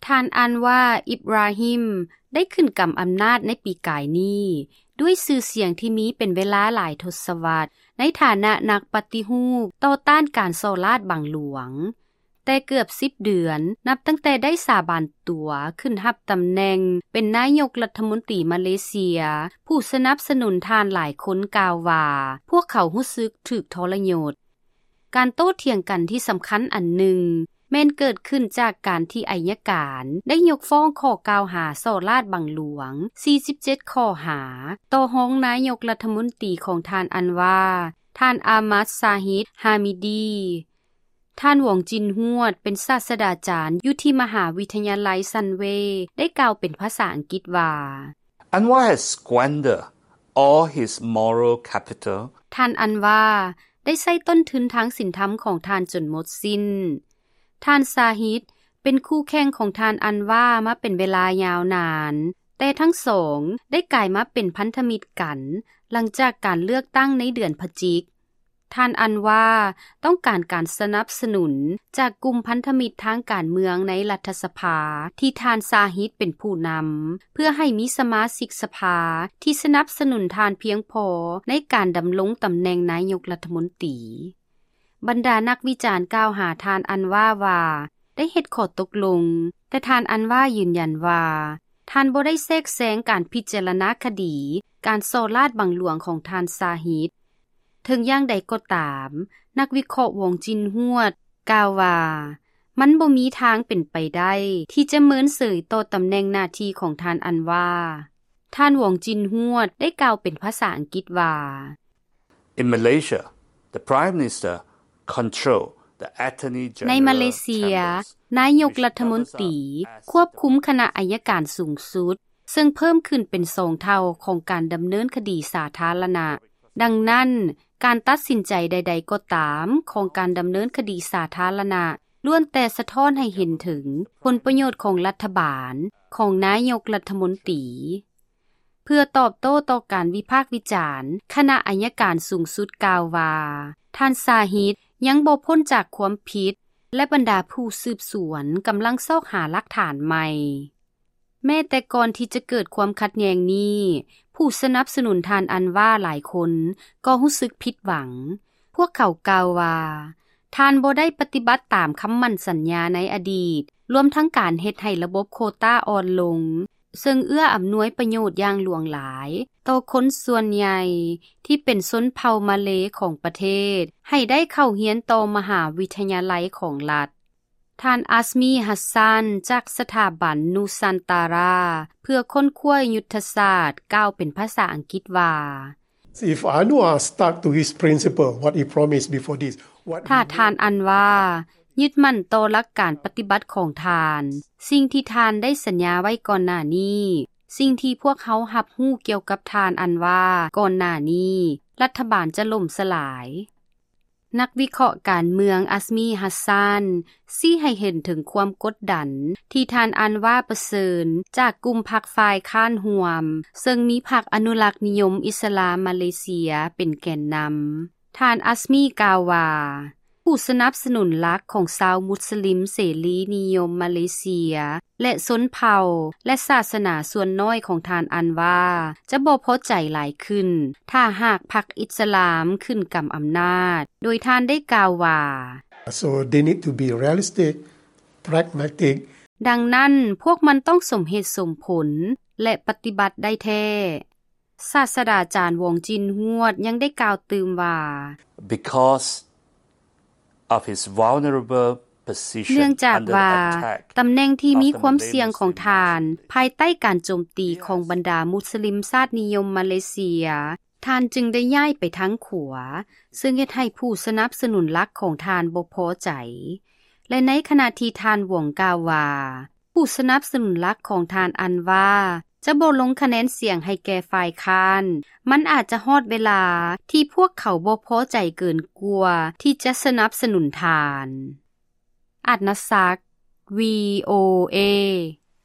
ທ່ານ ອັນວາ ອິບຣາຮິມ ໄດ້ຂຶ້ນກຳອຳນາດໃນປີກາຍນີ້ ດ້ວຍຊື່ສຽງທີ່ມີເປັນເວລາຫຼາຍທົດສະວັດ ໃນຖານະນັກປະຕິຮູບຕໍ່ຕ້ານການສໍ້ລາດບັງຫຼວງ. ແຕ່ເກືອບສິບເດືອນ ນັບຕັ້ງແຕ່ໄດ້ສາບານຕົວຂຶ້ນຮັບຕຳແໜ່ງເປັນນາຍົກລັດຖະມົນຕີມາເລເຊຍ ຜູ້ສະໜັບສະໜູນທ່ານຫຼາຍຄົນກ່າວວ່າ ພວກເຂົາຮູ້ສຶກຖືກທໍລະຍົດ. ການໂຕ້ຖຽງກັນທີ່ສຳຄັນອັນໜຶ່ງ ແມ່ນເກີດຂຶ້ນຈາກການທີ່ໄອຍະການໄດ້ຍົກຟ້ອງຂໍ້ກ່າວຫາສໍ້ລາດບັງຫຼວງສີ່ສິບເຈັດຂໍ້ຫາ ຕໍ່ຮອງນາຍົກລັດຖະມົນຕີຂອງທ່ານອັນວາ ທ່ານ ອາມັດ ຊາຮິດ ຮາມິດີ. ທ່ານ ຫວອງຈິນຮວດ ເປັນສາດສະດາຈານຢູ່ທີ່ມະຫາວິທະຍາໄລຊັນເວ ໄດ້ກ່າວເປັນພາສາອັງກິດວ່າ Anwar has squandered all his moral capital. ທ່ານ ອັນວາ ໄດ້ໃຊ້ຕົ້ນທຶນທາງສິນທຳຂອງທ່ານຈົນໝົດສິ້ນ. ທ່ານ ຊາຮິດ ເປັນຄູ່ແຂ່ງຂອງທ່ານອັນວາມາເປັນເວລາຍາວນານ, ແຕ່ທັງສອງໄດ້ກາຍມາເປັນພັນທະມິດກັນ ຫຼັງຈາກການເລືອກຕັ້ງໃນເດືອນພະຈິກ. ທ່ານອັນວາຕ້ອງການການສະໜັບສະໜູນຈາກກຸ່ມພັນທະມິດທາງການເມືອງໃນລັດຖະສະພາ ທີ່ທ່ານຊາຮິດເປັນຜູ້ນຳ ເພື່ອໃຫ້ມີສະມາຊິກສະພາທີ່ສະໜັບສະໜູນທ່ານພຽງພໍໃນການດຳລົງຕຳແໜ່ງນາຍົກລັດຖະມົນຕີ. ບັນດານັກວິຈານກ່າວຫາທ່ານອັນວາວ່າ ໄດ້ເຮັດຂໍ້ຕົກລົງ, ແຕ່ທ່ານອັນວາຢືນຢັນວ່າ ທ່ານບໍ່ໄດ້ແຊກແຊງການພິຈາລະນາຄະດີການສໍ້ລາດບັງຫຼວງຂອງທ່ານຊາຮິດ. ເຖິງຢ່າງໃດກໍຕາມ, ນັກວິເຄາະ ຫວອງຈິນຮວດ ກ່າວວ່າ ມັນບໍ່ມີທາງເປັນໄປໄດ້ທີ່ຈະເມີນເສີຍຕໍ່ຕຳແໜ່ງໜ້າທີ່ຂອງທ່ານອັນວາ. ທ່ານ ຫວອງຈິນຮວດ ໄດ້ກ່າວເປັນພາສາອັງກິດວ່າ In Malaysia, the Prime Minister control the Attorney General ໃນມາເລເຊຍ, chambers, ນາຍົກລັດຖະມົນຕີຄວບຄຸມຄະນະໄອຍະການສູງສຸດ, ເຊິ່ງເພີ່ມຂຶ້ນເປັນສອງເທົ່າຂອງການດຳເນີນຄະດີສາທາລະນະ. ດັ່ງນັ້ນ, ການຕັດສິນໃຈໃດໆກໍຕາມຂອງການດຳເນີນຄະດີສາທາລະນະ ລ້ວນແຕ່ສະທ້ອນໃຫ້ເຫັນເຖິງຜົນປະໂຫຍດຂອງລັດຖະບານ, ຂອງນາຍົກລັດຖະມົນຕີ. ເພື່ອຕອບໂຕ້ຕໍ່ການວິພາກວິຈານ, ຄະນະໄອຍະການສູງສຸດກ່າວວ່າ ທ່ານຊາຮິດຍັງບໍ່ພົ້ນຈາກຄວາມຜິດ ແລະ ບັນດາຜູ້ສືບສວນກຳລັງຊອກຫາຫຼັກຖານໃໝ່. ແມ້ແຕ່ກ່ອນທີ່ຈະເກີດຄວາມຂັດແຍ່ງນີ້, ຜູ້ສະໜັບສະໜູນທ່ານອັນວາຫຼາຍຄົນກໍຮູ້ສຶກຜິດຫວັງ. ພວກເຂົາກ່າວວ່າ ທ່ານບໍ່ໄດ້ປະຕິບັດຕາມຄຳໝັ້ນສັນຍາໃນອະດີດ, ລວມທັງການເຮັດໃຫ້ລະບົບໂຄຕ້າອ່ອນລົງ, ເຊິ່ງເອື້ອອຳນວຍປະໂຫຍດຢ່າງຫຼວງຫຼາຍຕໍ່ຄົນສ່ວນໃຫຍ່ທີ່ເປັນຊົນເຜົ່າມາເລຂອງປະເທດ ໃຫ້ໄດ້ເຂົ້າຮຽນຕໍ່ມະຫາວິທະຍາໄລຂອງລັດ. ທ່ານ ອັດສມີ ຮັດຊານ ຈາກສະຖາບັນນູຊານຕາຣາ ເພື່ອຄົ້ນຄວ້າຍຸດທະສາດ ກ່າວເປັນພາສາອັງກິດວ່າ If Anwar stuck to his principle, what he promised before this, what ຖ້າ he ທ່ານອັນວາຍຶດໝັ້ນຕໍ່ຫຼັກການປະຕິບັດຂອງທ່ານ, ສິ່ງທີ່ທ່ານໄດ້ສັນຍາໄວ້ກ່ອນໜ້ານີ້, ສິ່ງທີ່ພວກເຮົາຮັບຮູ້ກ່ຽວກັບທ່ານອັນວາກ່ອນໜ້ານີ້, ລັດຖະບານຈະລົ້ມສະຫຼາຍ. ນັກວິເຄາະການເມືອງ ອັດສມີ ຮັດຊານ ຊີ້ໃຫ້ເຫັນເຖິງຄວາມກົດດັນທີ່ທ່ານອັນວາປະເຊີນຈາກກຸ່ມພັກຝ່າຍຄ້ານຮ່ວມ, ເຊິ່ງມີພັກອະນຸລັກນິຍົມອິດສະລາມມາເລເຊຍເປັນແກນນຳ. ທ່ານ ອັດສມີ ກ່າວວ່າ ຜູ້ສະໜັບສະໜູນຫຼັກຂອງຊາວມຸດສະລິມເສລີນິຍົມມາເລເຊຍ ແລະ ຊົນເຜົ່າ ແລະ ສາສະໜາສ່ວນນ້ອຍຂອງທ່ານອັນວາ ຈະບໍ່ພໍໃຈຫຼາຍຂຶ້ນ ຖ້າຫາກພັກອິດສະລາມຂຶ້ນກຳອຳນາດ, ໂດຍທ່ານໄດ້ກ່າວວ່າ So they need to be realistic, pragmatic. ດັ່ງນັ້ນ, ພວກມັນຕ້ອງສົມເຫດສົມຜົນ ແລະ ປະຕິບັດໄດ້ແທ້. ສາດສະດາຈານ ຫວອງຈິນຮວດ ຍັງໄດ້ກ່າວຕື່ມວ່າ Because of his vulnerable position ເນື່ອງຈາກວ່າ under the attack ຕຳແໜ່ງທີ່ມີຄວາມສ່ຽງຂອງທ່ານ of the Malay Muslim ພາຍໃຕ້ການໂຈມຕີຂອງບັນດາມຸດສະລິມຊາດນິຍົມມາເລເຊຍ, ທ່ານຈຶ່ງໄດ້ຍ້າຍໄປທາງຂວາ, ເຊິ່ງເຮັດໃຫ້ຜູ້ສະໜັບສະໜູນຫຼັກຂອງທ່ານບໍ່ພໍໃຈ. ແລະ ໃນຂະນະທີ່ທ່ານ ຫວອງ ກ່າວວ່າ ຜູ້ສະໜັບສະໜູນຫຼັກຂອງທ່ານອັນວາຈະບໍ່ລົງຄະແນນສຽງໃຫ້ແກ່ຝ່າຍຄ້ານ, ມັນອາດຈະຮອດເວລາທີ່ພວກເຂົາບໍ່ພໍໃຈເກີນກວ່າທີ່ຈະສະໜັບສະໜູນທ່ານ. ອັດນະສັກ, ວີໂອເອ.